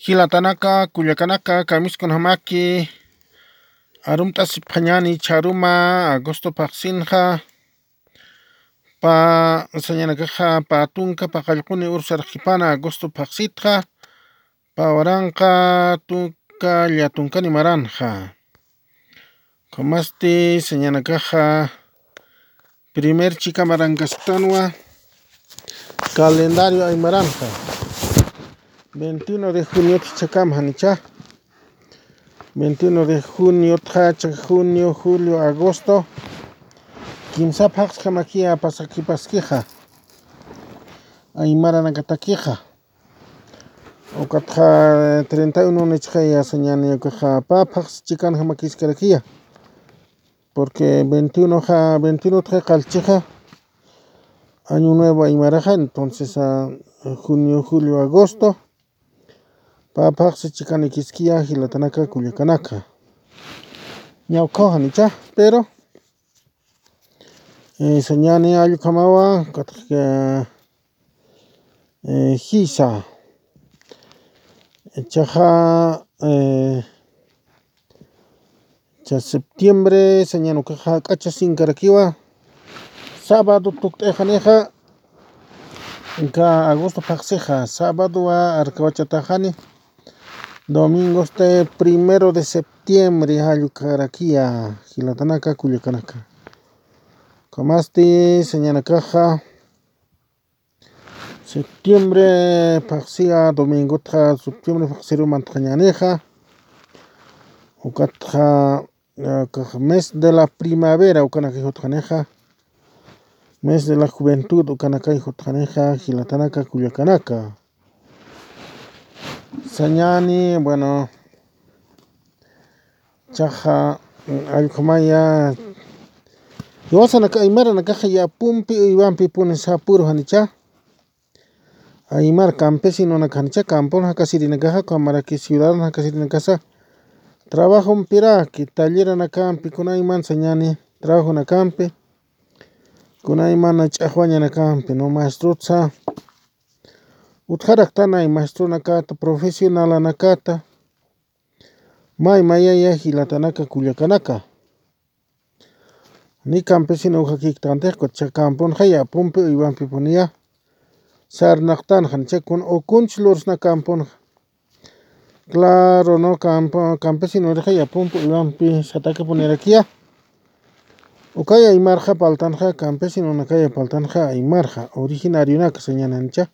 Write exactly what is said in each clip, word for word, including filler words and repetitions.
Jilatanaka, kullakanaka, kamiskunamaki arumt'asipxañäni chharuma agosto phaxsinxa, pä sañanakaxa pä tunka paqallquni uru sarxkipana agosto phaxsitxa, pä waranqa tunka llatunkani maranxa. Ukhamasti sañanakaxa primer chika marankasktanwa calendario aymaranxa. Veintiuno de juniot jichhakam janicha. Veintiuno de juniotxa, chhak junio, julio, agosto, kimsa phaxsjamakiya pasakipaskixa aymaranakatakixa. Ukatxa treinta y uno nichxaya sañani ukaxa pä phaxsi chikanjamakiskarakiya. Porque veintiuno ja, veintiuno utxa qallchixa año nuevo aymaraxa, entonces, ah, junio, julio, agosto, pä phaxsi chikanikiskiya jilatanaka, kullakanaka. Ñawkhaw janicha, pero, eh, sañani allkhamawa, katxka, eh, jisa. Chaxa, eh, cha septiembre, sañan ukaxa k'acha sinkarakiwa. Sábado tukt'ixanixa, ka agosto phaxsixa, sábadowa arkawachataxani. Domingosti primero de septiembre, jallukarakiya, jilatanaka, kullakanaka. Ukhamasti, sañanakaxa, septiembre phaxsiya domingotxa, septiembre phaxsiru mantañänixa. Ukatxa, eh, kax mes de la primavera ukanakay jutxanixa. Mes de la juventud ukanakay jutxanixa, jilatanaka, kullakanaka. Sañani, bueno, chaxa, mm, allkhumaya, jiwasanaka aymaranakaxa yapumpi uywampipuni sapuru janicha. Aymar campesinonaka janicha, campon jakasirinakaxa, ukhamaraki ciudadano jakasirinakasa trabajompiraki, talleranakampi, kunayman sañani trabajonakampi, kunayman ch'axwañanakampi, ¿no? Maestrotsa utjaraktanay, maestronakata, profesionalanakata, may mayaya jilatanaka, kullakanaka. Ni campesino ujakïktantix, ukatxa camponxa yapumpi uywampipuniya sarnaqtanxa, janicha, kun ukunch lursna camponxa. Claro, ¿no? Campo, campesino urixa yapumpi uywampi satäkapunirakiya. Ukaya aymarxa parltanxa, campesinonakaya parltanxa aymarxa, originarionaka sañani janicha.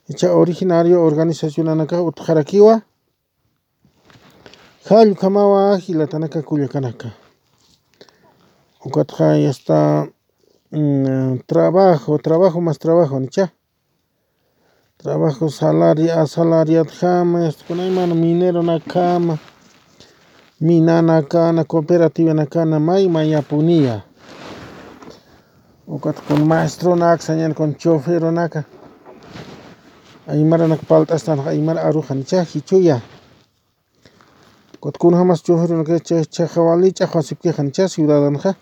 Jichha originario organizacionanakax utjarakiwa. Jall ukhamawa jilatanaka, kullakanaka. Ukatxa ya está, mm, trabajo, trabajo más trabajo, ¿nicha? Trabajo salaria-, asalariadjama, este, kunayman mineronakjama, minanakana, cooperativanakana, may mayapuniya. Ukat kun maestronaka, sañani kun choferonaka. Aymaranaka parlt'astanxa aymar aruxa, ¿nicha? Jichhuya. Ukat kunjamas choferonaka, cha-, chaxa wali ch'axwasipkixa, ¿nicha? Ciudadanxa.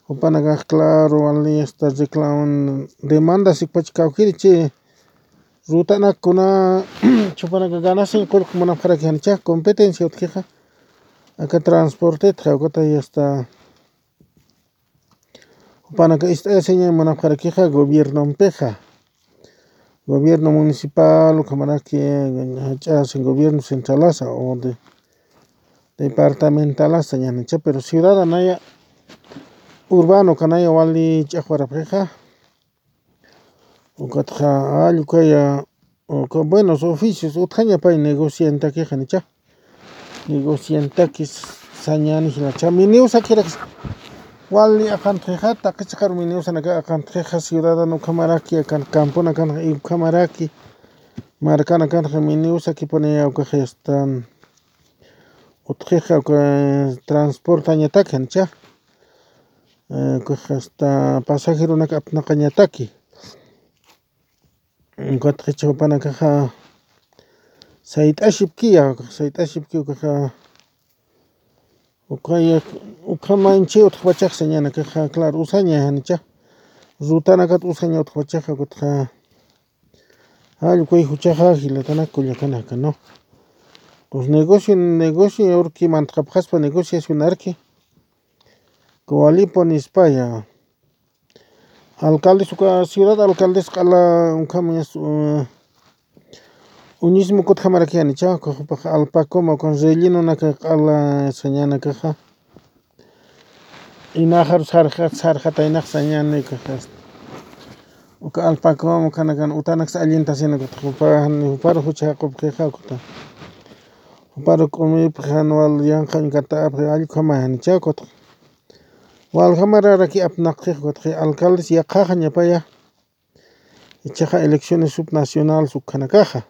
Jupanakax, claro, wali hasta reclamo, demanda sikpach kawkiri chi. Rutanak kuna, jupanaka ganasin qullq munapxaraki, ¿nicha? Competencia utjixa. Aka transportetxa, ukata ya está. Jupanaka ist'ayasiña munapxarakixa gobiernompixa. Gobierno municipal, ukhamaraki, jach'asin gobierno centralasa o de, departamentalasa, ñanicha, pero ciudad anaya, urbano kanaya wali ch'axwarapxixa. Ukatxa, allukaya, uka buenos oficios utjaña pay negociantakixa, ¿nicha? Negociantakis sañani jilacha. Miniusakirakis wali aqantxixa, taqi chiqaru miniusanaka aqantxixa, ciudadano ukhamaraki, akan camponakanxa ukhamaraki, markanakanxa miniusakipuniya, ukaxa ya está, utjixa, uka transportañataki, ¿nicha? Eh, ukaxa ya está, pasajeronaka apnaqañataki. Ukatxa jichha jupanakaxa sayt'asipkiya, sayt'asipki ukaxa, ukaya, ukhamanchi utjpachaxa sañanakaxa, claro, usaña, ¿nicha? Rutanakat usaña utjpachaxa, ukatxa Jallk'uy juchaxa jilatanaka kullakanaka, ¿no? Pues negocio, negocio, urki mantxapxaspa negociacionarki. Kuwalipu nispaya. Alcaldes uka ciudad alcaldes q'ala ukham, eh, uñismu kutjamarakiyanicha, uka jupax alpacoma, ukan rellenonaka q'ala sañanakaxa. Inaxar sarxat, sarxataynax sañanakaxa. Uka alpacoma, ukanakan utanaksa allintasina kutx, jupa, jupar jucha jaqupxixa, ukata. Jupar k'umipxi, jan wal yanqhañ katapxi, allkhamay janicha, kutx. Waljamararaki apnaqxix, ukatxi alcaldes yaqhaxañapaya. Ichaxa elecciones subnacionales ukhanakaxa.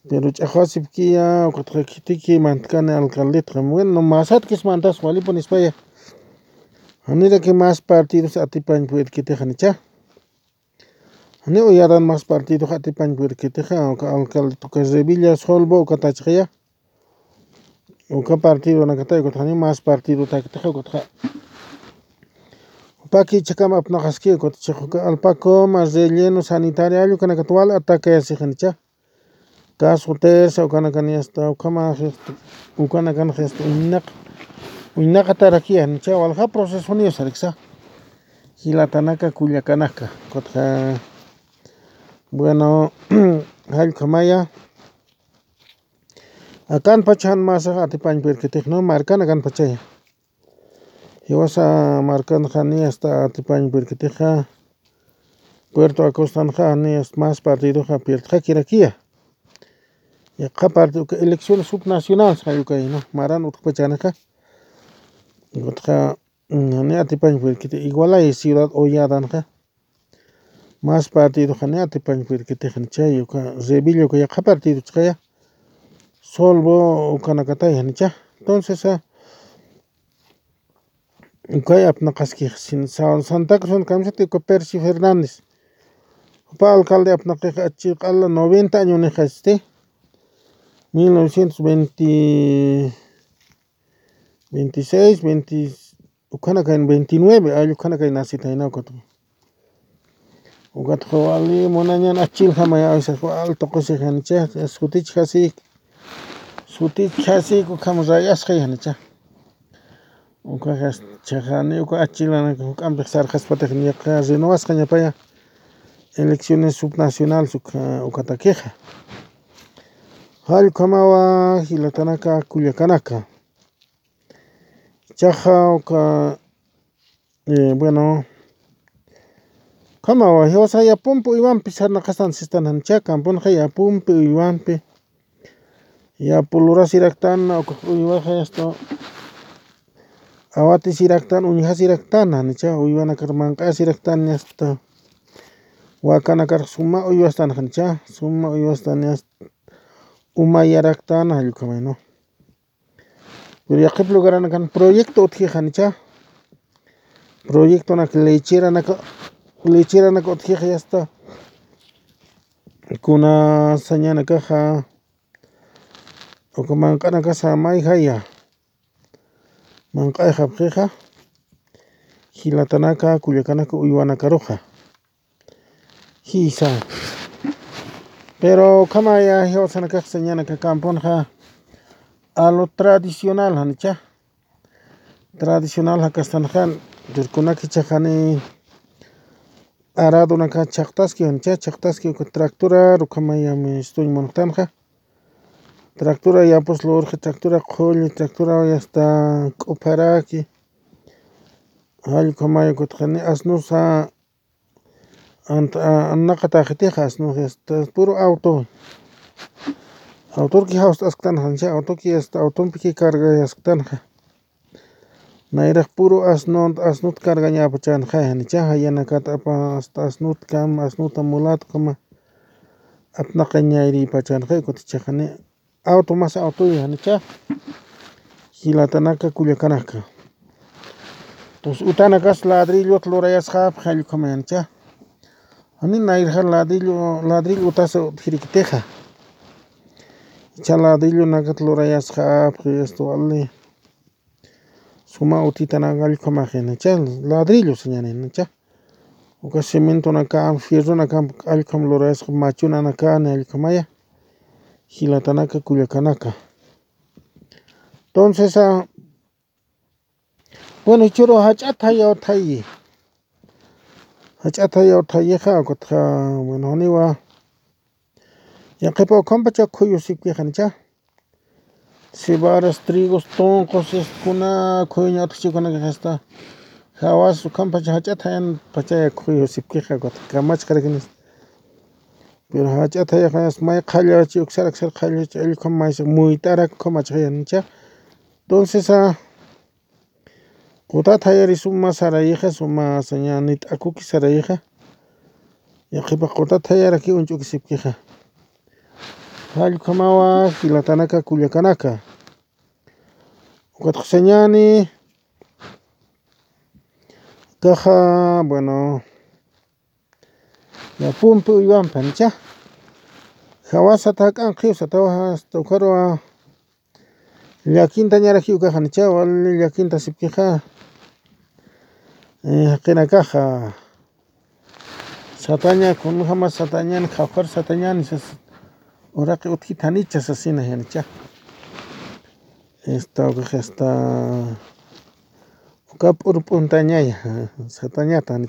Pero ch'axwasipkiya, ukatxa khitiki mantkani alcaldetxa. Bueno, masatkis mantas walipu nispaya. Janiraki más partidos atipañ purirkitix janicha. Jani uyadan más partidox atipañ purirkitixa, uka alcalde, uka Revilla Solvo, uka tachxaya. Uka partidonakatay, ukatxa jani más partidotakitixa, ukatxa. Jupaki ichhakam apnaqaski, ukatxa uka alpacoma, relleno, sanitaria, allukanakat wal atacayasixanicha. Caso Terza, ukanakan yasta, ukhama, ukanakan yasta, uñnaq, uñnaqatarakiyanicha, walja proceso niyo sariksa. Jilatanaka, kullakanaka, ukatxa, bueno, jallkhamaya. Akan pacha jan masax atipañ purirkitix, ¿no? Markan akan pachaya. Jiwasa markanxa ni hasta atipañ purirkitixa, Puerto Acostanxa ni hasta más partidoxa pirdxakirakiya. Yaqha parte uka elecciones subnacionales jallukay, ¿no? Maran utjpachanixa. Ukatxa, mm, ni atipañ purirkiti, igualay ciudad Olladanxa. Más partidoxa ni atipañ purirkitix janicha, uka Revilla uka yaqha partido ch'axaya. Solvo ukanakatay janicha. Entonces, ah, ukay apnaqaskix, sin, Sa-, Santa Cruz kamisati uka Percy Fernández. Jupa alcalde apnaqix achchi q'ala noventa añonixasti. Mil novecientos veinte, veintiséis, veinte, ukhanakayn veintinueve, ay, ukhanakayn nacitayna, ukatxa. Ukatxa wali munañan achchiljamay, a veces wal tuqusixanicha, sutichjasik, sutichjasik, ukham rayasxayanicha. Ukaxa, chhaxani, uka achchilanaka juk'ampix sarxaspatix niyaqa renovasxañapaya elecciones subnacionales uka, ukatakixa. Jallkhamawa, jilatanaka, kullakanaka. Chaxa uka, eh, bueno, khamawa, jiwasa yapumpi uywampi sarnaqastan sistan janicha, kampunxa yapumpi uywampi. Yapu lurasiraktan, uka uywaxa yasta, awatisiraktan, uñjasiraktan janicha, uywanakar manq'asiraktan yasta. Wakanakar suma uywastan janicha, suma uywastan yasta. Umayaraktan, jallkhamay, ¿no? Pero yaqhip lugaranakan proyecto utjixanicha. Proyectonak lecheranaka, lecheranaka utjix yasta. Kuna sañanakaxa, uka manq'anakasa mayjaya. Manq'ayxapxixa. Jilatanaka, kullakanaka, uywanakaruxa. Jisa. Pero ukhamaya jiwasanakax sañanaka kampunxa a lo tradicional janicha. Tradicional jakastanxa, rirkunaki chhaxani aradonaka chhaqtaski janicha, chhaqtaski uka tractora, ukhamaya mistuñ munxtanxa. Tractora yapus lurxi, tractora qhulli, tractora yasta k'upharaki. Jallkhamay ukatxani asnusa Ant-, a-, anaqataxitixa, asnux, este, puro auto. Autorki jawst'asktan janicha, autoki, este, autompiki cargayasktanxa. Nayrax puro asnut, asnut cargañapachanxa janicha, jayanakat apa, hasta asnutkam, asnuta mulatkama. Apnaqañayripachanxa, kutichaxani. Auto mas autoya janicha. Jilatanaka, kullakanaka. Entonces, utanakas ladrillot lurayasxapxi jallkhamay janicha. Jani nayrja ladrillo, ladrillo utasa utjirikitixa. Icha ladrillonakat lurayasxapxi, esto wali. Suma utitanak jallkhamaxi janicha. Ladrillo sañani janicha. Uka cementonaka, fierronaka, allkham lurasqa machunanaka, ni allkhamaya. Jilatanaka, kullakanaka. Entonces, ah, bueno, jichhüru jach'at jayaw thayi. Jach'at jayaw thayixa, ukatxa, bueno, janiwa. Yaqhipa ukhampacha khuyusipkixa, ¿no? Cebadas, trigos, tunqus, este, kuna khuyuña utjchikunakaxa, este, jawas ukhampacha jach'at jayanpachaya khuyusipkixa, ukatxa kamachxarakinis. Pero jach'at jayaxa, este, may qhallachi, uksar uksar qhallachi, allkham maysa muyt'arak ukhamachxaya, ¿no? Entonces, ah, qutat jayari suma sarayixa, suma sañani t'akuki sarayixa. Yaqhipa qutat jayaraki uñch'ukisipkixa. Jall ukhamawa, jilatanaka, kullakanaka. Ukatxa sañani, kaxa, bueno, yapumpi uywampi, ¿no? Jawasa tak'an qhiw satawa, hasta ukharuwa, llakintañaraki ukaxa, ¿no? Wali llakintasipkixa. Eh, jaqinakaxa. Sataña, kunjama satañan, jawkhar satañan, sas, uraqi utjitanicha sasina, ¿no? Esta, ukax, esta, uka p'urp'untañaya, satañata, ¿no?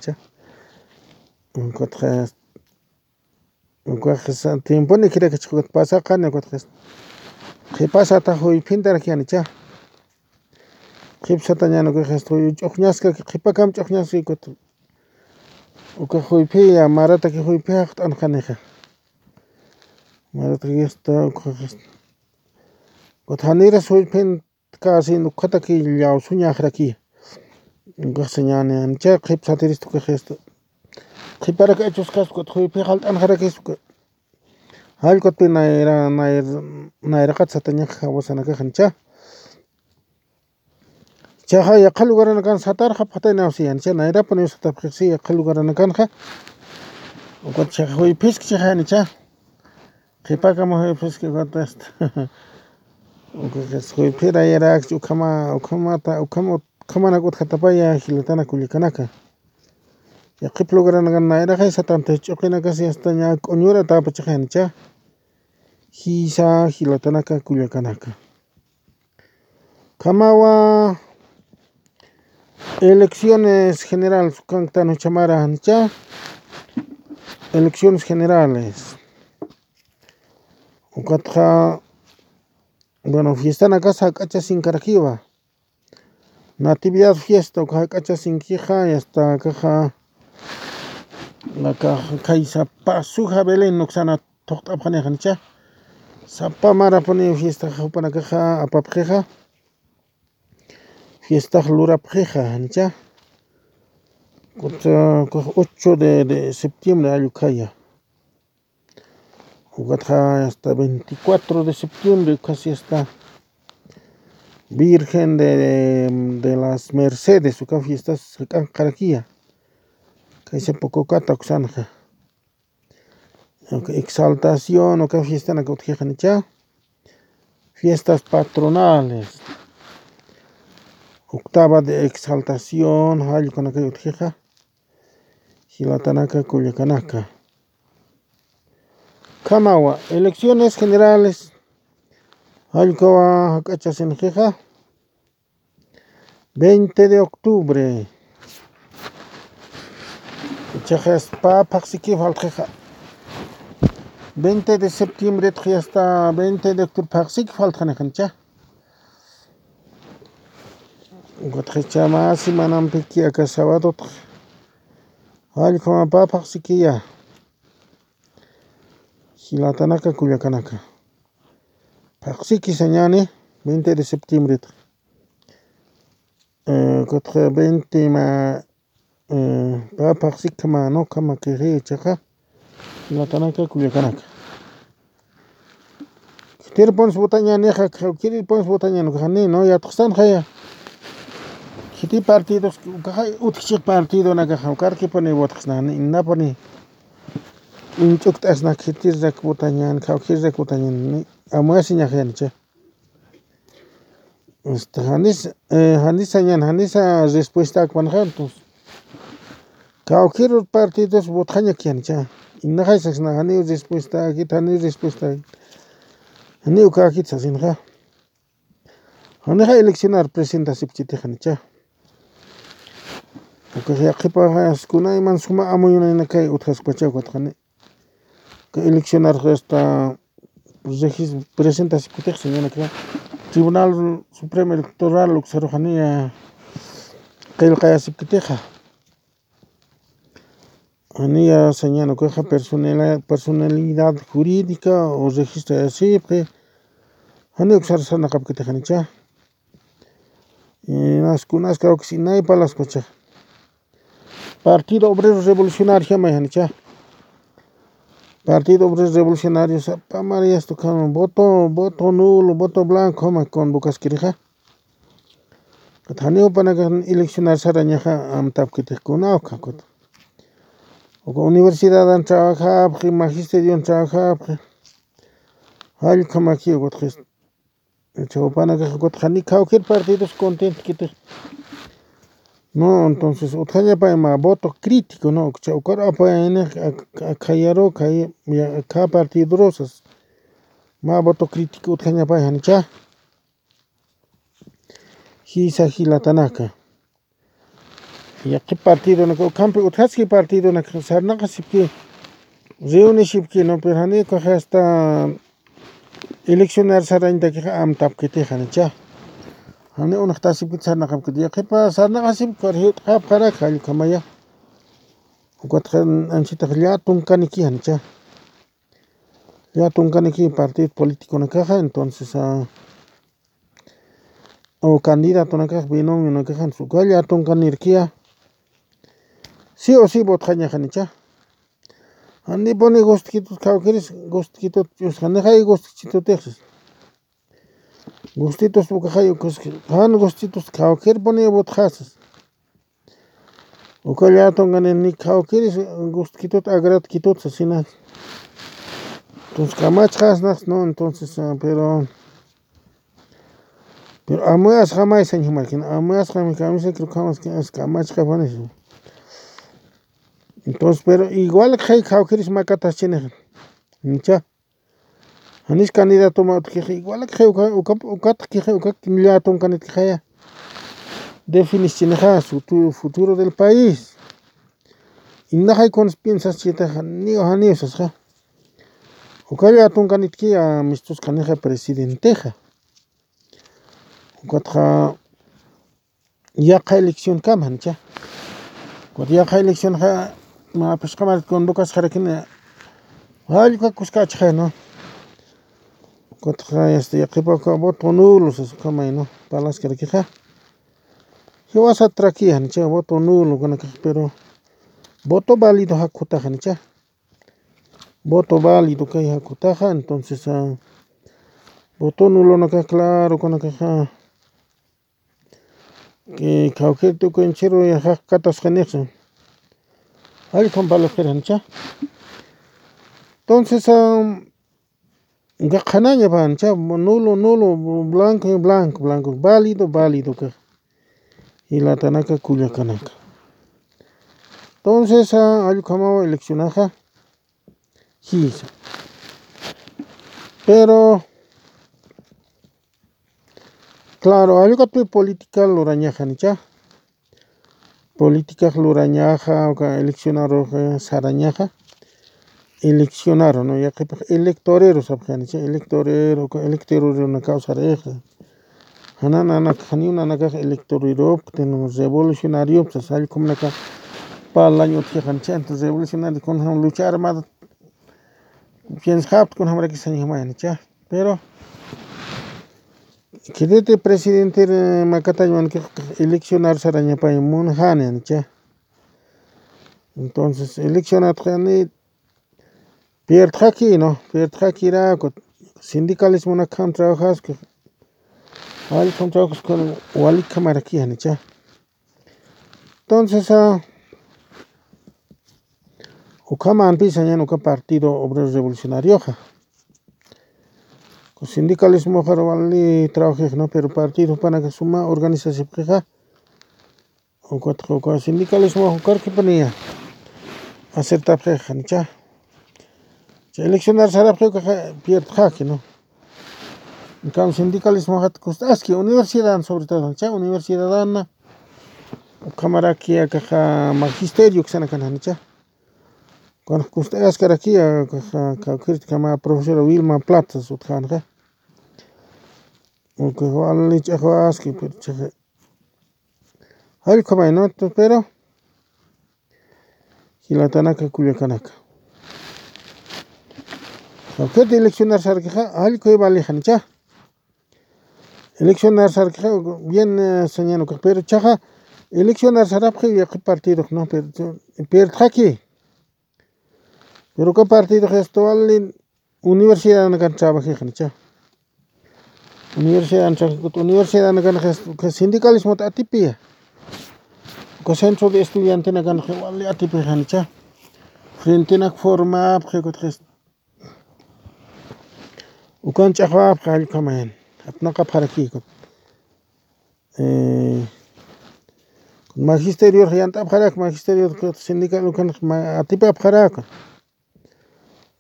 Ukatxa, ukax, tiemponi khirakachix ukat pasaqani, ukatxa, qhipa sata juyphintaraki, ¿no? Qhip satañan, ukax, ch'uxñaskaki, qhipakam ch'uxñaskaki, ukat, uka juyphiya, marataki juyphi jaqt'anxanixa. Marataki, esta, ukax, ukat janiras juyphin, casi ukhataki llawsuñaxaraki. Ukax sañani, ¿no? Qhip satiristu, ukax, esta, qhiparak achuskas, ukat juyphi jaqt'anxarakis, ukat. Jall ukatpi nayra, nayr-, nayraqat satañax jawasanakaxa, ¿no? Chaxa yaqha lugaranakan satarxapxataynaw siya, ¿no? Nayrapuniw satapxixsi yaqha lugaranakanxa. Ukat chaxa juyphiskchixa, ¿no? Qhipakama juyphiski, ukat, esta. Ukax juyphirayarakchi ukhama, ukhamata, ukhama, ukhamanak utjatapaya, jilatana, kullakanaka. Yaqhip lugaranakan nayraqay satantix ch'uqinakasi, esta, ña k'uñura tapachaxa, ¿no? Jisa, jilatanaka, kullakanaka. Ukhamawa, elecciones generales ukanktan juchamara, ¿no? Elecciones generales. Ukatxa, bueno, fiestanakas jak'achasinkarakiwa. Natividad fiesta, uka jak'achasinkixa, y hasta akaxa, akaxa, kay sapa suja Belén uksana thuqt'apxanixa, ¿no? Sapa marapuni fiesta jupanakaxa apapxixa. Fiestax lurapxixa, ¿no? Ukat, ukax ocho de, de septiembre jall ukhaya. Ukatxa hasta veinticuatro de septiembre, ukhasi hasta Virgen de, de, de las Mercedes, uka fiestas jak'anxarakiya. Kaysa Pococata uksanxa. Uka Exaltación, uka fiestanak utjixa, ¿no? Fiestas patronales. Octava de Exaltación, jall ukanakay utjixa. Jilatanaka, kullakanaka. Ukhamawa, elecciones generales. Jall ukawa jak'achasinxixa. Veinte de octubre. Chaxa pä phaxsiki faltxixa. Veinte de septiembre txi hasta veinte de octubre phaxsiki faltxanixa, ¿no? Ukatxa chama semanampiki aka sabadotxa. Jall ukhama pä phaxsikiya. Jilatanaka, kullakanaka. Phaxsiki sañani, veinte de septiembre. Eh, ukatxa veinte ma, eh, pä phaxsiki ma, ¿no? Ukhama kixi chaxa. Jilatanaka, kullakanaka. Khitirpuns votañänixa, khitirpuns votañän, ukax jani, ¿no? Yatxsanxaya. Khiti partidos, ukaxa utjchix partidonakaxa, ukarkipuni votaxsna, ni inapuni. Uñch'ukt'asna, khitirak votañän, khawkhirak votañän, ni amuesiñaxaya, ¿no? Este, janis, eh, janis sañän, janisa respuesta akpanxa, entonces. Kawkir partidos votxañaki janicha. Inaxay sasna, janiw respuestakit, janiw respuestakit. Janiw kakit sasinxa. Janixa eleccionar presentasipkiti janicha. Ukax yaqhipaxas kunayman suma amuyunaynakay utjaskpacha ukatxani. Ka eleccionar hasta regis-, presentasipkitix señanakra Tribunal Supremo Electoral uksarux janiya qillqayasipkitixa. Janiya señan ukaxa personela-, personalidad jurídica o registrayasipxi. Jani uksar sarnaqapkitix janicha. Inas kunas kawkis inay palaspacha. Partido Obrero Revolucionario jamay janicha. Partido Obrero Revolucionario sapamariyastu kama voto, voto nulo, voto blanco jama convocaskirixa. Janiw panaka eleccionar sarañaxa amtapkitix kunaw kakut. Uka universidadan trabajapxi, magisterion trabajapxi. Jallkhamaki ukutxis. Chawpanakax ukutxa ni kawkir partidos contentkitix. No, entonces utjañapay mä voto crítico, no, ukcha ukar apayaynix ak-, ak-, akhayaru, akhay-, ya, akha partidorusas. Mä voto crítico utjañapay janicha. Jisa jilatanaka. Yaqhip partidonaka ukhampi utjaski partidonaka sarnaqasipki, reunishipki, no, pero jani ukax hasta eleccionar sarañtakixa amtapkitix janicha. Jani unaxtasipkit sarnaqapkit yaqhipa sarnaqasipki, jiwt'xapxarak jallkhamaya. Ukatxa anchitax llä tunkaniki janicha. Llä tunkaniki partido politiconakaxa, entonces, ah, o candidatonakax, binomionakaxa, uka llä tunkanirkiya. Sí o sí votxañaxa janicha. Janipuni gustkitut kawkiris, gustkitut, yusxanixay gustkitutix. Gustitus ukaxay ukas, jan gustitus kawkirpuni votxasas. Uka llä tunkanin ni kawkiris gustkitut, agratkitut sasina. Entonces, kamachxasnax, ¿no? Entonces, ah, pero, pero amuas jamay sañ jumarkin, amuas jamay kamisa creo que jamás que es kamachxapanis. Entonces, pero igual que kawkiris makataschinix. Nicha. Janis candidato mä utjkix, igual que uka, uka, ukat que uka llä tunkanit que jaya. Definischinixa su tu-, futuro del país. Inaxay kunas piensas chita janiw, janiw sasxa. Uka llä tunkanitki amistus kanixa presidentexa. Ukatxa yaqha elección kama janicha. Ukat yaqha elección ja, mä phisqa marit convocasxarakini. Jallka kuskachxay, ¿no? Ukatxa, este, yaqhipa uka voto nulo sas ukamay, ¿no? Palaskarakixa. Jiwasat traki janicha, voto nulo kanakax, pero voto válido jakutax janicha. Voto válido kay jakutaxa, entonces, ah, voto nulonakax, claro, kanakaxa, que kawkir tukunchiru yaqhaq katasqanixsa. Jallkham valor janicha. Entonces, ah, qhanaña pancha, nulo, nulo, blanco, blanco, blanco, válido, válido, ka. Jilatanaka, kullakanaka. Entonces, ah, allkhamaw eleccionaxa. Jisa. Pero, claro, allkatpi política lurañaxa, nicha. Política lurañaxa, uka eleccionaruxa sarañaxa. Eleccionaru, ¿no? Yaqhipax electorero sapxi, nicha, electorero, uka electorero nakaw saraxa. Jana nanak, janiw nanakax electorero, revolucionario, pues, allkham naka parlañ utjixa, nicha, entonces revolucionario, kunjam lucha armada, piensxapxta kunjamaraki sañ jumay, nicha. Pero, khititi presidente, eh, makatañ mankax eleccionar sarañapay munxani, nicha. Entonces, eleccionatxani, pierdxaki, ¿no? Pierdxakiraku, sindicalismo nakhan trabajaski, allkham trabajaski, walikhamarakix, nicha. Entonces, ah, ukhamanpi sañan uka Partido Obrero Revolucionarioxa. Sindicalismoxar wali trabajix, ¿no? Pero partido jupanaka suma organizasipxixa. Ukatxa uka sindicalismo ukarkipaniya. acertapxi janicha. Cha eleccionar sarapxi ukaxa pierdxaki, ¿no? Entonces, sindicalismo jat kust'aski, universidad sobre todo, cha universidad na, ukhamaraki akaxa magisterio ksanakan janicha. Cuando kust'askaraki, akaxa, kawkirtkama profesora Wilma Platas utjanxa. Ukaxa wali ch'axwaski, pero chaxa. Jallkhamay, ¿no? Pero, jilatanaka, kullakanaka. Jawkit eleccionar sarkixa, jallkhay vali janicha. Eleccionar sarkixa, bien, eh, sañan ukax, pero chaxa, eleccionar sarapxi yaqhip partidox, ¿no? Pero, pero, pierdxaki. Pero uka partidox esto vali universidad nakan trabajixanicha. Universidad nakan, universidad nakan sindicalismo atipia. Uka centro de estudiante nakan wali atipixanicha. Frente nak formapxi, ukan ch'axwapxi, jallkhamayan. Apnaqapxaraki, eh, magisterio yant'apxarak, magisterio sindical ukan atipapxarak.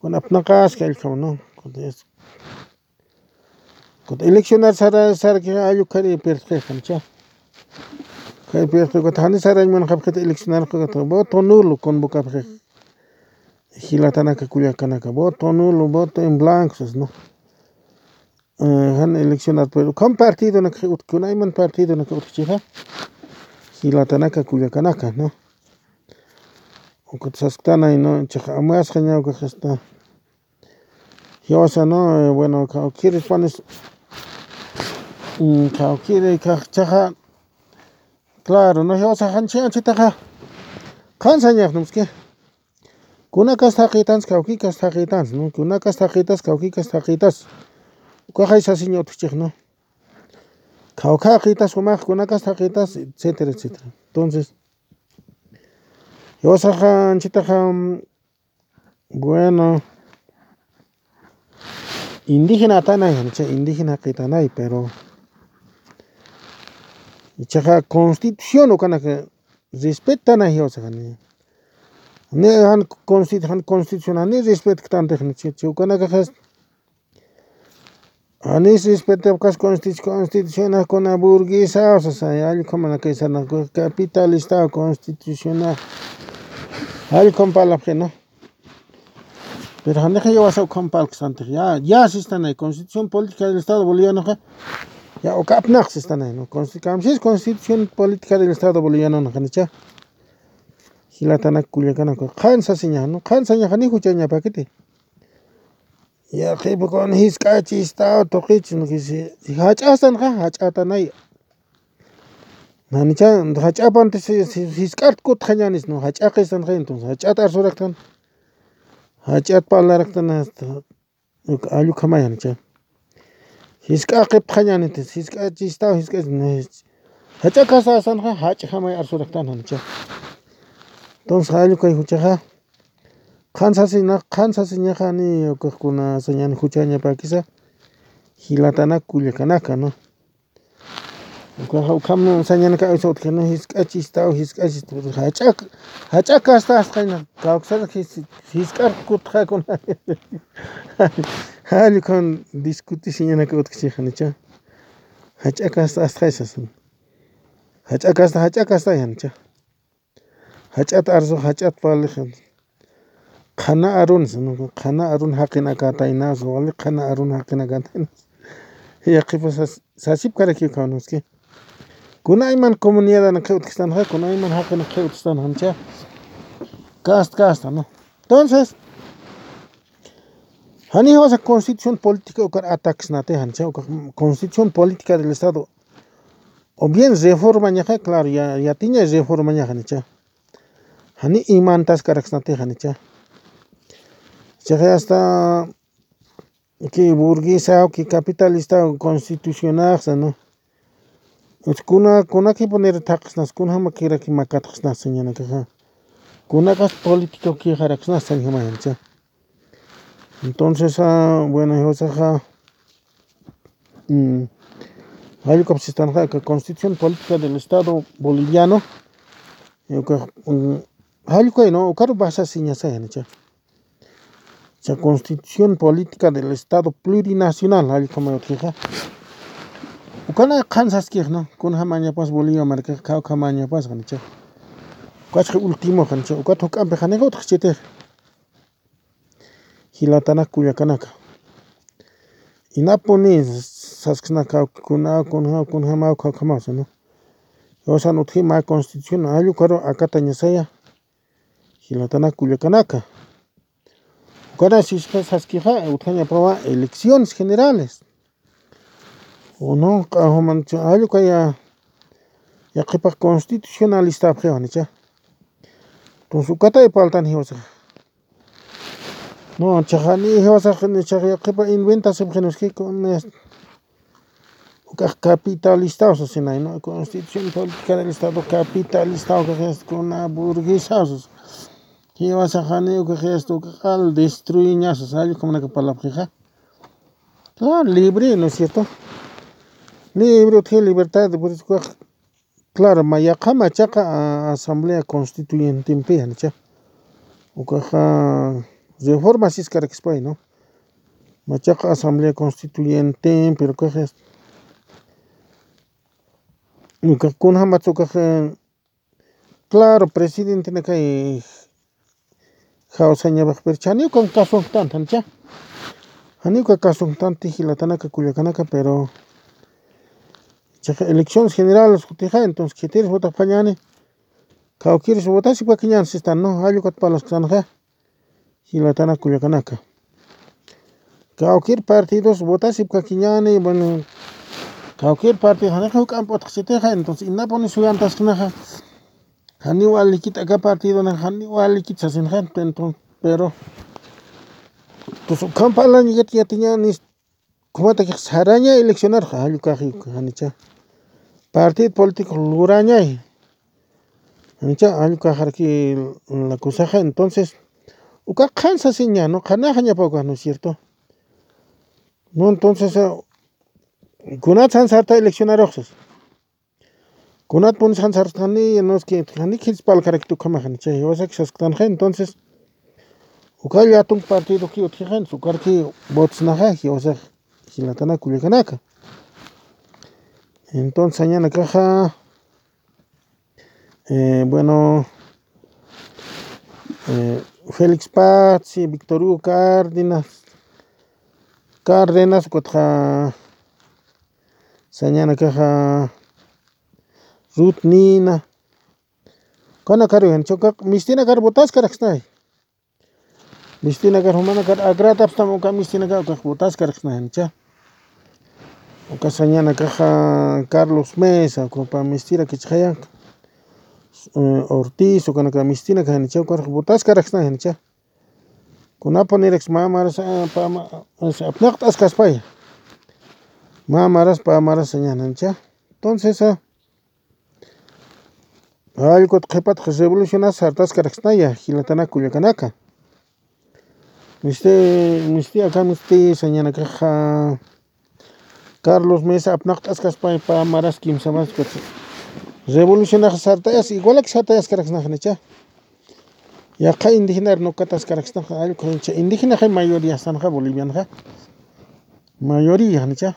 Kun apnaqaski, jallkhama, ¿no? Kun es-, kun eleccionar sara, sarki, jallkhari pierdxi janicha. Kay pierdxi, kun jani sarañ munxapxi eleccionar, kun voto nulo convocapxi. Jilatanaka, kullakanaka, voto nulo, voto en blanco, ¿no? Eh, jan eleccionar, pero ukham partidonak utjki, kunayman partidonak utjchixa. Jilatanaka, kullakanaka, ¿no? Ukat sasktanay, ¿no? Chaxa amasxaña ukax esta. Jiwasa, ¿no? Eh, bueno, kawkiri panis, mm, kawkiri kax chaxa. Claro, ¿no? Jiwasa janchi, janchitaxa. Qhan sañax, ¿no? Es que kunakas taqitans, kawkikas taqitans, ¿no? Kunakas taqitans, kawkikas taqitans. Ukaxay sasiña utjchix, ¿no? Kawkaqitas, jumax, kunakas taqitans, etcétera, etcétera. Entonces, jiwasaxa, anchitaxa, mm, bueno, indígena atanay, ancha indígena qitanay, pero ichaxa constitución ukanaka respetanay jiwasaxa, ni, ni jan consti-, jan constitución, ni respetktanti, ni chi, chi ukanakaxas, janis respetapkas constitu-, constitucionax kuna burguesaw sasa, jallkhamanakay sarnaka, capitalista constitucionax. Jallkham parlapxi, ¿no? Pero janixa jiwasa ukham parlkstantix, ya, ya sistanay, Constitución Política del Estado Bolivianoxa, ya uka apnaq sistanay, ¿no? Consti-, kamsis Constitución Política del Estado Boliviano, ¿no? Janicha. Jilatanak, kullakanak, qhan sasiñaxa, ¿no? Qhan sañaxa ni juchañapakiti. Yaqhipa kun jisk'achistaw tuqichis, ¿no? Jach'astanxa, jach'atanay. Janicha, jach'apanti si, si, jisk'at kutxañanis, ¿no? Jach'aqistanxa, entonces, jach'at arsuraktana. Jach'at parlaraktana, hasta, allukhamay janicha. Jisk'aqipxañaniti, jisk'achistaw, jisk'ach, ¿no? Jach'akasastan, jach'jamay arsuraktana, janicha. Entonces, allukay juchaxa. Qhan sasina, qhan sasiñaxa ni ukaxkuna sañan juchañapakisa, jilatanak, kullakanaka, ¿no? Ukaxa ukham sañanaka utjkina, jisk'achistaw, jisk'achistaw, jach'ak, jach'akastasqaña, kawksar jis-, jisk'ar kutxakuna. Jall ukham discutisiñanaka utjkchi janicha. Jach'akastasqay sasin. Jach'akasta, jach'akasta janicha. Jach'at arsuxa, jach'at parlaxa. Qhana arun, sino qhana arun jaqinakataynas, wali qhana arun jaqinakataynas. Yaqhipa sas-, sasipkarakiw kawnuski. Kunayman comunidadnak utjkistanxa, kunayman jaqinnak utjkistanxa, janicha. Kasta, kasta, ¿no? Entonces, jani jiwasa constitución política ukar atacsnati, janicha, uka constitución política del Estado. O bien reformañaxa, claro, ya, yatiña reformañaxa, janicha. Jani imantaskaraksnati, janicha. Chaxa hasta que burguesaw, que capitalista constitucionaxa, ¿no? Kuna, kunakipunir thaqsnas, kunjamakiraki makatxsnas sañanakaxa. Kunakas político kixaraksnas sañjamayancha. Entonces, ah, bueno, jiwasaxa, mm, jallukapsistanxa, aka Constitución Política del Estado Boliviano, eh, uka, mm, jallkay, ¿no? Ukaru basasiñasay, janicha. Cha Constitución Política del Estado Plurinacional, jallkamay utjixa. Ukana qhansaskix, ¿no? Kunjamañapas Bolivia markax, kawkhamañapas, janicha. Ukachxi último, janicha. Ukat juk'ampi janixa utjxchitix. Jilatanak kullakanaka. Inapuni sasksnaka kuna, kunja, kunjamaw, kawkhamaw, ¿no? Jiwasan utji mä constitución, jallkaru akatañasaya. Jilatanak kullakanaka. Ukana sisqa saskixa, utjañapawa elecciones generales. Uno, q'ajumancha, jallkaya, yaqhipax constitucionalistapxiwa, janicha. Entonces, ukatay paltan jiwasax. No, chaxani jiwasax, ni chax yaqhipa inventasipxinuski con este. Ukax capitalista, o sea, sinay, ¿no? Constitución Política del Estado Capitalista, ukax es con una burguesa, o sea, jiwasaxani ukax es, ukax al destruiñas, o sea, jallkamanaka parlapxixa. Claro, libre, ¿no es cierto? Libre, utji libertad, por eso ukax, claro, mä yaqha machaqa a-, Asamblea Constituyentempi, janicha. Ukaxa reforma siskarakispay, ¿no? Machaqa Asamblea Constituyentempi, pero ukaxa, ukax kunjamatsa ukaxa, claro, presidentenakay jawsañapax, pero janiw ukan kasunktanti, janicha. Janiw uka kasunktanti jilatanaka kullakanaka, pero chax elecciones generales utjixa, entonces, khitiris votapañäni, kawkiris votasipkakiñäni sistan, ¿no? Jallkat parlasktanxa. Jilatanak kullakanaka. Kawkir partidos votasipkakiñäni, bueno, kawkir partido, janixa juk'amp utjxchitixa, entonces, inapuni suyantasknaxa, janiw walikit aka partidonax, janiw walikit sasinxa, entonces, pero, entonces, ukham parlañakat yatiñäni, kumatakix saraña eleccionarxa, jallkaxi, janicha. Partido político lurañay. Janicha, jallkaxaraki la cosaxa, entonces, uka qhan sasiña, ¿no? Qhanaxañapa uka, ¿no es cierto? No, entonces, eh, kunat sansarta eleccionaruxsas. Kunatpuni sansartani, no es que, jani khitspalkarakit ukhamax, janicha, jiwasak sasktanxa, entonces, uka llatunk partidoki utjixa, ukarki votsnaxa, jiwasax, jilatanak kullakanaka. Entonces, sañanakaxa, eh, bueno, eh, Félix Patzi, Víctor Hugo Cárdenas, Cárdenas, ukatxa, sañanakaxa, Ruth Nina, ukanakaru, janicha, uka mistinakar votaskaraksnay. Mistinakar, jumanakar agradapxtam uka mistinakar, ukax votaskaraksnay, janicha. Uka sañanakaxa Carlos Mesa, uka pä mistirakichxaya, eh, Ortiz, ukanaka mistinaka, janicha, ukax votaskaraksnay, janicha. Kunapuniraks mä maras, eh, pä ma-, eh, apnaqt'askaspaya. Mä maras, pä maras sañäni, janicha. Entonces, ah, jallkut qhipat revolucionas sartaskaraksnaya, jilatanak kullakanaka. Misti, misti aka misti sañanakaxa Carlos Mesa apnaqt'askaspay pä maras kimsa maras ukat. Revolucionax sartayas, igualak sartayaskaraksnaxa, janicha. Yaqha indígenar no kataskaraksnaxa, jallku, janicha. Indígenaxa mayoría sanxa bolivianxa. Mayoría, janicha.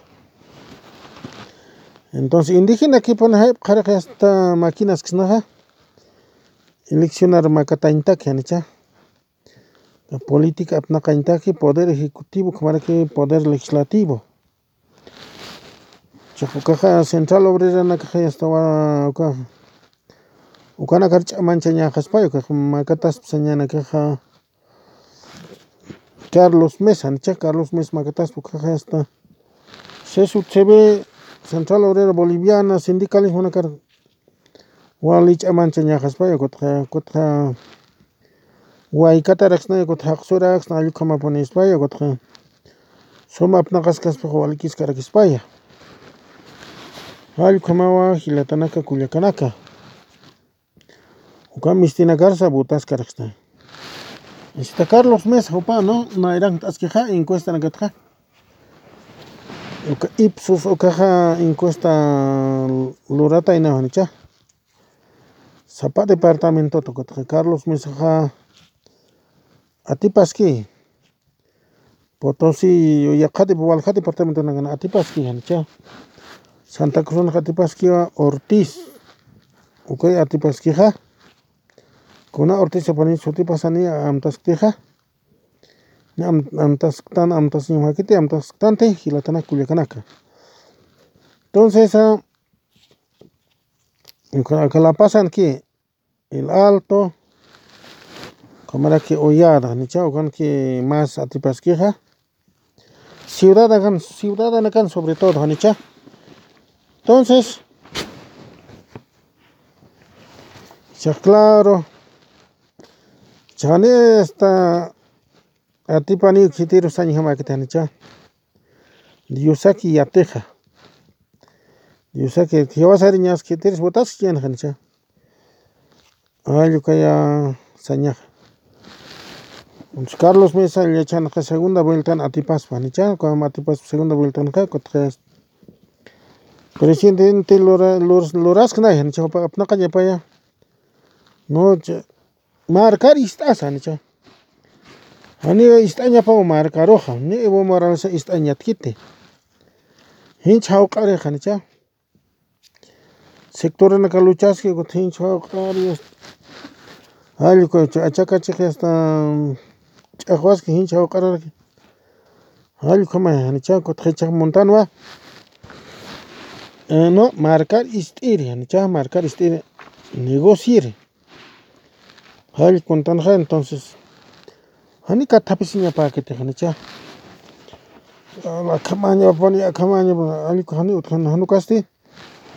Entonces, indígenakipun jayp'xaraki hasta maquinasksnaxa. Eleccionar makatañtaki, janicha. Política apnaqañtaki, poder ejecutivo, ukhamaraki poder legislativo. Chax ukaxa central obreranakaxa yastawa uka, ukanakar ch'amanchañaxaspay, ukax makataspa sañanakaxa Carlos Mesa, janicha, Carlos Mesa makataspa ukaxa hasta C S U C B, Central Obrera Boliviana, sindicalismonakar wali ch'amanchañaxaspay, ukatxa, ukatxa waykataraksnay, ukatxa jaqsuraksna, jallkhamapunispaya, ukatxa suma apnaqaskaspax walikiskarakispaya. Jallkhamawa jilatanaka kullakanaka. Uka mistinakarsa votaskaraksna. Esta Carlos Mesa jupa, ¿no? Nayrankt'askixa encuestanakatxa. Uka Ipsos ukaxa encuesta luratayna, janicha. sapa departamentot, ukatxa Carlos Mesaxa atipaski. Potosí, yaqha dep-, walja departamentonakan atipaski, janicha. Santa Cruzanxa atipaskiwa Ortiz. Ukay atipaskixa. Kuna Ortiz sapani sutipasani amtasktixa. Ni am-, amtasktan, amtasñamakiti, amtasktanti, jilatanak kullakanaka. Entonces, ah, uka, uka La Pazanki, El Alto, ukhamaraki Hollada, janicha, ukanki más atipaskixa. Ciudadakan, ciudadanakan sobre todo, janicha. Entonces, cha claro, chani esta atipani khitiru sañjamakiti, janicha. Diosaki yatixa. Diosaki jiwasariñas khitiris votaski, janicha. Ay, ukaya sañaxa. Entonces, Carlos Mesa yachanxa segunda vueltan atipaspa, janicha, como atipaspa segunda vueltanxa, kutxa presidente lura-, lur-, lurasknay, janicha, jupa apnaqañapaya. No, cha, markar ist'asa, janicha. Jani ist'añapaw markaruxa, ni Evo Morales ist'añatkiti. Jinch jawq'arixa, janicha. Sectoranaka luchaski, ukat jinch jawq'ari, jallku, achakachix hasta ch'aqwaski, jinch jawq'araraki. Jallku, jama, janicha, ukat jichax montanwa. Eh, no, markar ist'iri, janicha, markar ist'iri, negociiri. Jallkuntanxa, entonces, jani kathapisiñapäkiti, janicha. Akhamañapani, akhamañapani, jallku, jani utjan, jan ukasti.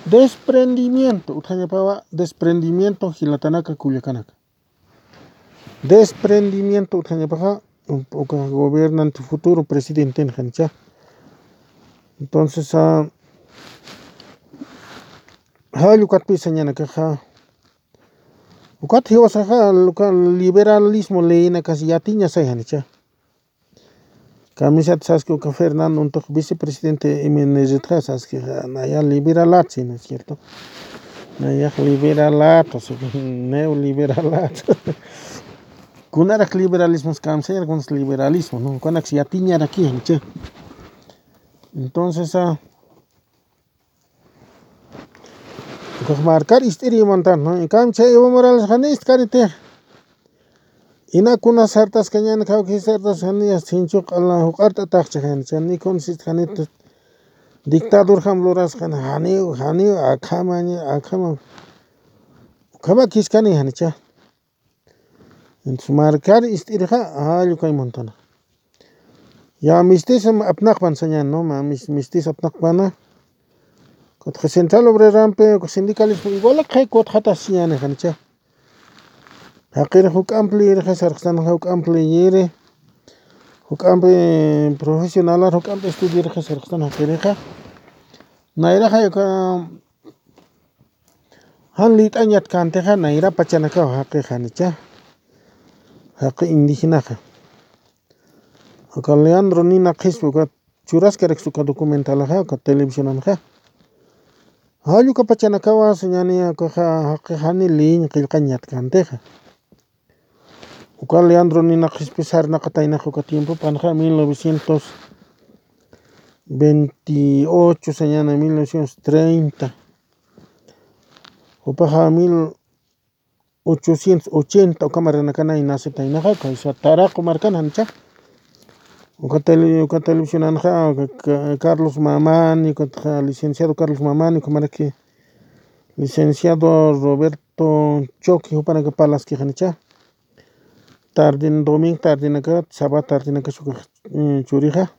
Desprendimiento, utjañapawa, desprendimiento, jilatanaka, kullakanaka. Desprendimiento, utjañapaxa, uka gobernante futuro, presidenten, janicha. Entonces, ah, jall ukatpï sañanakaxa, ukat jiwasaxa, uka liberalismo leynakas yatiñasay, janicha. Kamisat saski uka Fernando Untuq vicepresidente M N Z-xa saski, naya liberalat, ¿sí, no es cierto? Nayax liberalat, o sea, neoliberalat. Kunarak liberalismos kamsayar, kunas liberalismo, ¿no? Kunarak yatiñaraki, janicha. Entonces, ah, ukax markar ist'iri montan, ¿no? En cambio, chay Evo Morales jani ist'kaniti. Ina kuna sartaskañan, kawki sartas jani, sinchuq ala juq'art'ataxcha jani, chani kun sistkanit dictador jam luraskan, janiw, janiw, akhamaña, akhama. Ukhama kiskani janicha. Entonces, markar ist'irixa, jall ukay montana. Ya mistis apnaqpan sañan, ¿no? Ma mis-, mistis apnaqpana. Kutxa Central Obrerampi, uka sindicalismo igual kay kutxatas sañani, janicha. Jaqiri juk'amp liyirixa sarxtan, juk'amp liyiri. Juk'amp, eh, profesionalar, juk'amp estudiarixa sarxtan jaqirixa. Nayraxa uka jan lït'añatkantixa nayra pachanakaw jaqi, janicha. Jaqi indígenaxa. Uka Leandro Nina Qhispi, uka churaskaraksa uka documentalaxa, uka televisionanxa. Jall uka pachanakawa sañani, ukaxa jaqi jani lïñ qillqañatkantixa. Uka Leandro Nina Qhispi sarnaqataynax uka tiempopanxa mil novecientos veintiocho sañana, mil novecientos treinta. Jupaxa mil ochocientos ochenta uka markanakanay nacetaynaxa, kaysa Taraqu markan, janicha. Uka tele-, uka televisionanxa, uka Ca-, Carlos Mamani, uka licenciado Carlos Mamani, uka maraki licenciado Roberto Choque, jupanaka parlaski, janicha. Tardin, domingo tardinaka, sábado tardinaka, uka, eh, churixa.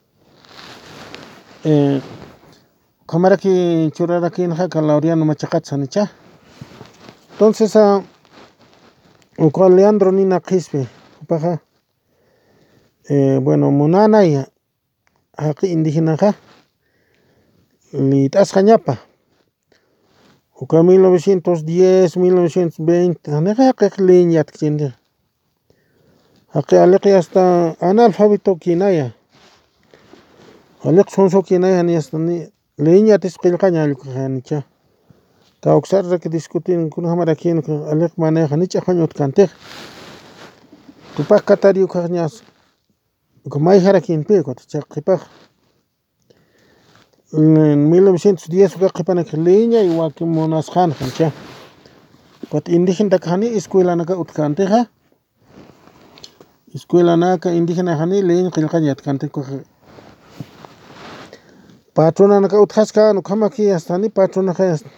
Eh, ukhamaraki churarakinxa, uka Laureano Machaqat, janicha. Entonces, ah, uka Leandro Nina Qhispi, jupaxa, eh, bueno, munanaya, jaqi indígenaxa lït'asxañapa. Uka mil novecientos diez, mil novecientos veinte, janixa jaqix lïñ yatkchinti. Jaqi aliqi hasta analfabeto kinaya. Aliq sunsu kinaya, jani hasta ni lïñ yatis qillqaña, jallku, janicha. Kawksarrak discutin kunjamarakïn aliq manera janicha janicha utkantix. Tupax Katari ukaxñas uka mayjarakïnpi ukat chaqipax. En mil novecientos diez uka qhipanak liña y wakimunasqan jancha. Ukat indígenatak jani escuelanaka utkantixa. Escuelanaka indígena jani liña qillqañ yatkanti ukaxa. Patronanaka utjaskan ukhamaki hasta jani patronaxa hasta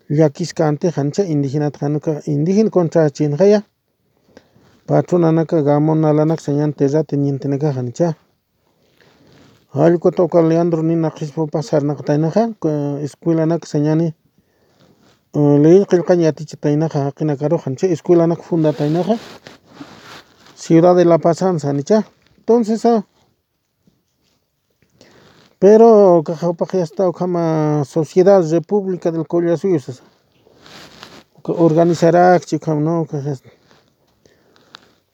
llakiskanti jancha indígenat januka indígena contrachinxaya. Patronanaka gamonalanak sañan terratenientenaka jancha. Jallkuta uka Leandro Nina Qhispupa sarnaqataynaxa escuelanak sañani. Ley qillqañ yatichataynaxa jaqinakarux jancha escuelanak fundataynaxa. Ciudad de La Pazan sanicha. Entonces a Pero ukaxa upax yasta ukhama Sociedad República del Collasuyo sasa. Uka organizarakchi ukham no ukax yasta.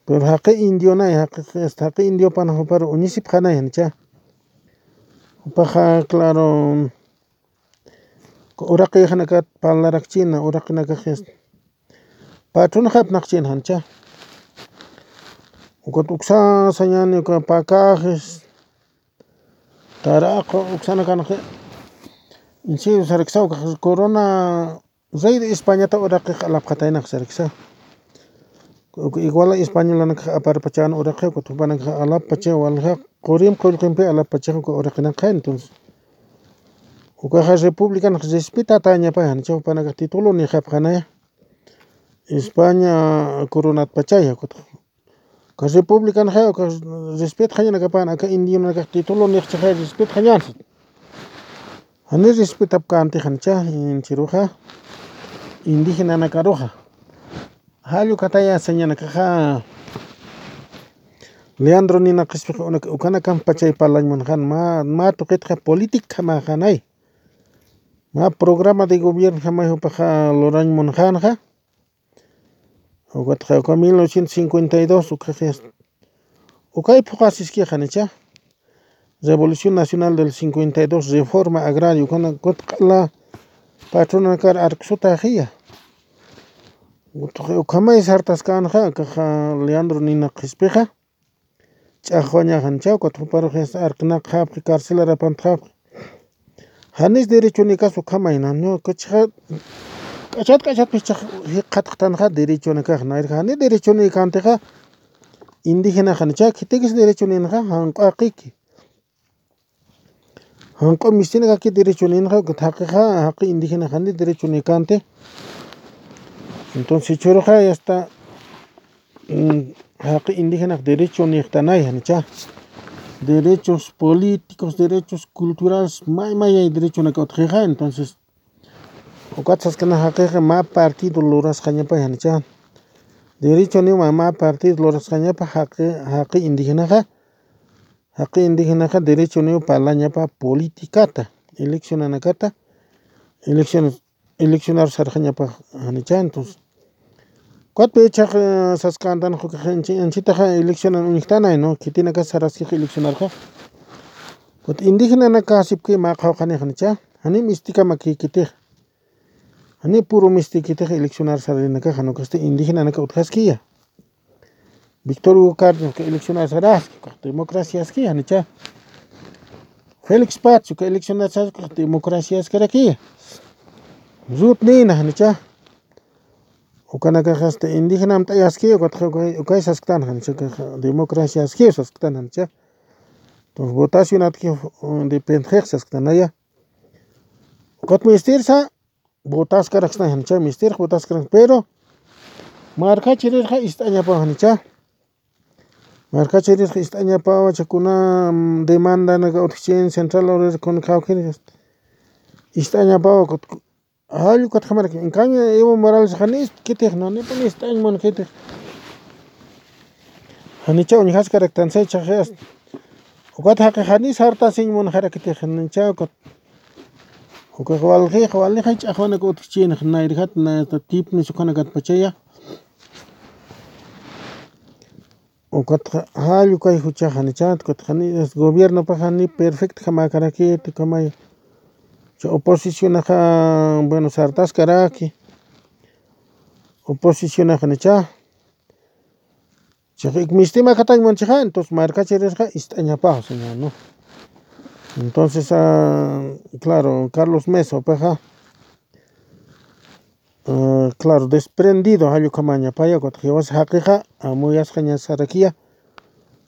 Pero jaqi indionay jaqi yasta jaqi indiopanax uparu uñisipxanay jancha. Upaxa claro. Uraqixanakat parlarakchina uraqinakax yasta. Patronxapnaqchin jancha. Ukat uksa sañani uka pakaxis. Taraqu uksanakanxi. Insiyu saraksa ukax corona rey de Españata uraqix alapxataynax saraksa. Uka iguala españolanakax aparpachan uraqi ukat jupanakax alappacha walja qurim qullqimpi alappacha uka uraqinakaxa entonces. Ukaxa republicanax respetatañapa jancha jupanakax título nixapxanaya. España coronatpachaya ukatax. Uka republicanxa uka respetxañanakapan aka indionakax título nixchaxa respetxañansa. Jani respetapkänti jancha inchiruxa. Indigenanakaruxa. Jallukataya sañanakaxa. Leandro Nina Qhispix ukanakam pachay parlañ munxan mä tuqitxa política mä janay. Mä programa de gobierno jamay jupaxa lurañ munxanxa. Ukatxa uka mil novecientos cincuenta y dos ukaxis. Ukay phuqasiski janicha. Revolución Nacional del cincuenta y dos reforma agraria ukana kutq'ala. Patronakar arksutaxiya. Ukhamay sartaskanxa kaxa Leandro Nina Qhispixa. Ch'axwañaxan chawkat juparux yasta arknaqxapxi carcelarapantxapxi. Janis derechonikas ukhamayna no kachxa. K'achat k'achatpis chax jikxatxtanxa derechonikax nayrxa jani derechonikantixa. Indigenaxan chak khitikis derechoninxa janq'aqiki. Janq'u mistinakaki derechoninxa ukat jaqixa jaqi indigenaxani derechonikanti. Entonces churuxa yasta jaqi indigenax derechonixtanay janicha. Derechos políticos derechos culturales may mayay derechonaka utxixa entonces. Ukat saskana jaqixa mä partido lurasqañapay janicha. Derechoniw mä partido lurasqañapa jaqi jaqi indigenaxa. Jaqi indigenaxa derechoniw parlañapa politicata eleccionanakata. Elecciones eleccionar sarxañapa janicha entonces. Kutpi ichax saskantan jukax anchitaxa eleccionan uñjtanay no khitinakas saraskix eleccionarxa. Kut indigenanaka asipki mä qhawqhanix janicha. Janim istikamakikitix. Jani puru mistikitix eleccionar sarinakaxa nukasti indigenanaka utjaskiya. Victor Hugo Cardenas uka eleccionar saraski ukax democraciaski janicha. Félix Paz uka eleccionar saraski ukax democraciaskarakiya. Ruth Nina janicha. Ukanakaxasta indigenam t'ayaski ukatxa ukay sasktan janicha ukaxa democraciaski sasktan janicha. Entonces votacionatki dependxix sasktanaya. Ukat mistirsa votaskaraksna janicha mistirx votaskaraksna pero markachirirxa ist'añapaw janicha. Markachirirxa ist'añapaw chakuna demandanaka utjchin central obrera kuna khawkhin ist'añapaw. Jallukatxamaraki enkaña evo morales jani istkitix nanipun ist'añ munkitix. Janicha uñjaskaraktansa ichaxi asta. Ukat jaqi jani sartasiñ munxarakitix janicha ukat. Ukax walxix walixay ch'axwanak utjchïnx nayrjat nayata tipnis ukhanakatpachaya. Ukatxa jallukay juchax janichat ukatxa jani gobiernopax jani perfectjamakaraki tukamay. Cha oposicionaxa, bueno, sartaskaraki. Oposicionaxa nicha. Chiqik mistima katañman chiqa, entonces markachirisqa ist'añapaw, señor, ¿no? Entonces, ah, claro, Carlos Mesa, upaxa, ah, claro, desprendido, jallukamaña, paya, kutaq jiwas jaqiqa, amuyasqaña sarakiya.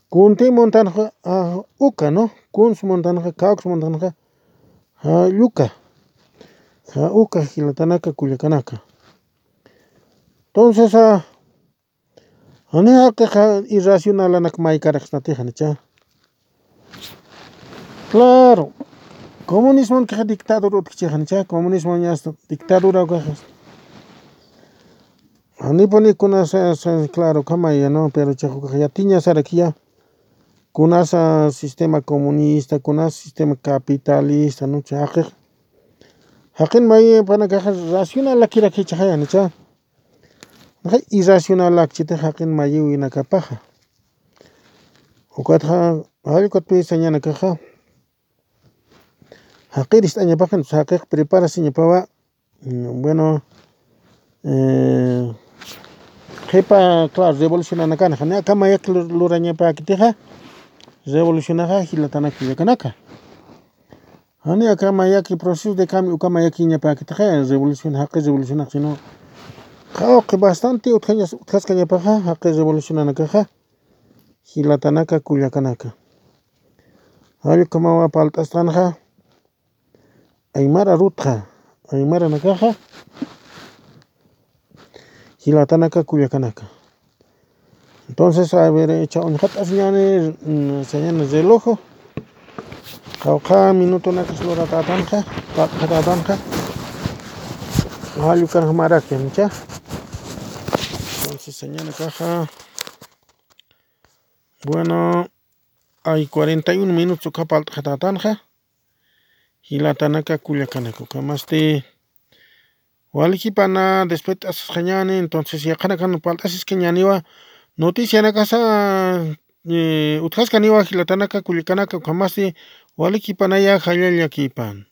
Kunti montanqa, ah, uka, ¿no? Kuns montanqa, kawks montanqa, jalluka. Ja, uka jilatanaka, kullakanaka. Entonces, ah, jani jaqiqa irracionalanak maykaraqsnatixa nicha. Claro, comunismon kaxa dictador utkichixa nicha, comunismon ñasta dictadura ukaxa. Janipuni kunasa, sa, claro, kamaya, ¿no? Pero chaqukax yatiña sarakiya. Kunasa sistema comunista, kunasa sistema capitalista, ¿no? Jaqix. Jaqin mayipanakaxa racionalakirakichaxaya nicha. Naxa irracionalakchiti jaqin mayiwinakapaxa. Ukatxa, jallkutpi sañanakaxa. Jaqir ist'añapaxa, jaqix preparasiñapawa, mm, bueno, eh, qhipa, claro, revolucionanakana, jani aka mayaki lur-, lurañapäkitixa, revolucionaxa jilatanaka kullakanaka. Jani aka mayaki proceso de cambio, uka mayakiñapäkitixa, revolución, jaqi revolucionax, sino, qawqi bastante utjañas-, utjaskañapaxa, jaqi revolucionanakaxa, jilatanaka kullakanaka. Jallkamawa palt'asqanxa, aymara rutxa, aymaranakaxa, jilatanaka kullakanaka. Entonces, a ver, cha uñjat'asiñani, mm, sañani relojo. Qawqha minutonakas luratätanxa, palt'atätanxa. Jallukanxa maraki, ¿no? Cha. Entonces, sañanakaxa, bueno, ay cuarenta y uno minutos uka palt'atätanxa. Jilatanaka kullakanaka, ukhamasti walikipana despedit'asisqañani, entonces yaqhanakan palt'asiskañaniwa, noticianakasa, eh, utjaskaniwa jilatanaka kullakanaka, ukhamasti walikipanaya jallalla llakipan.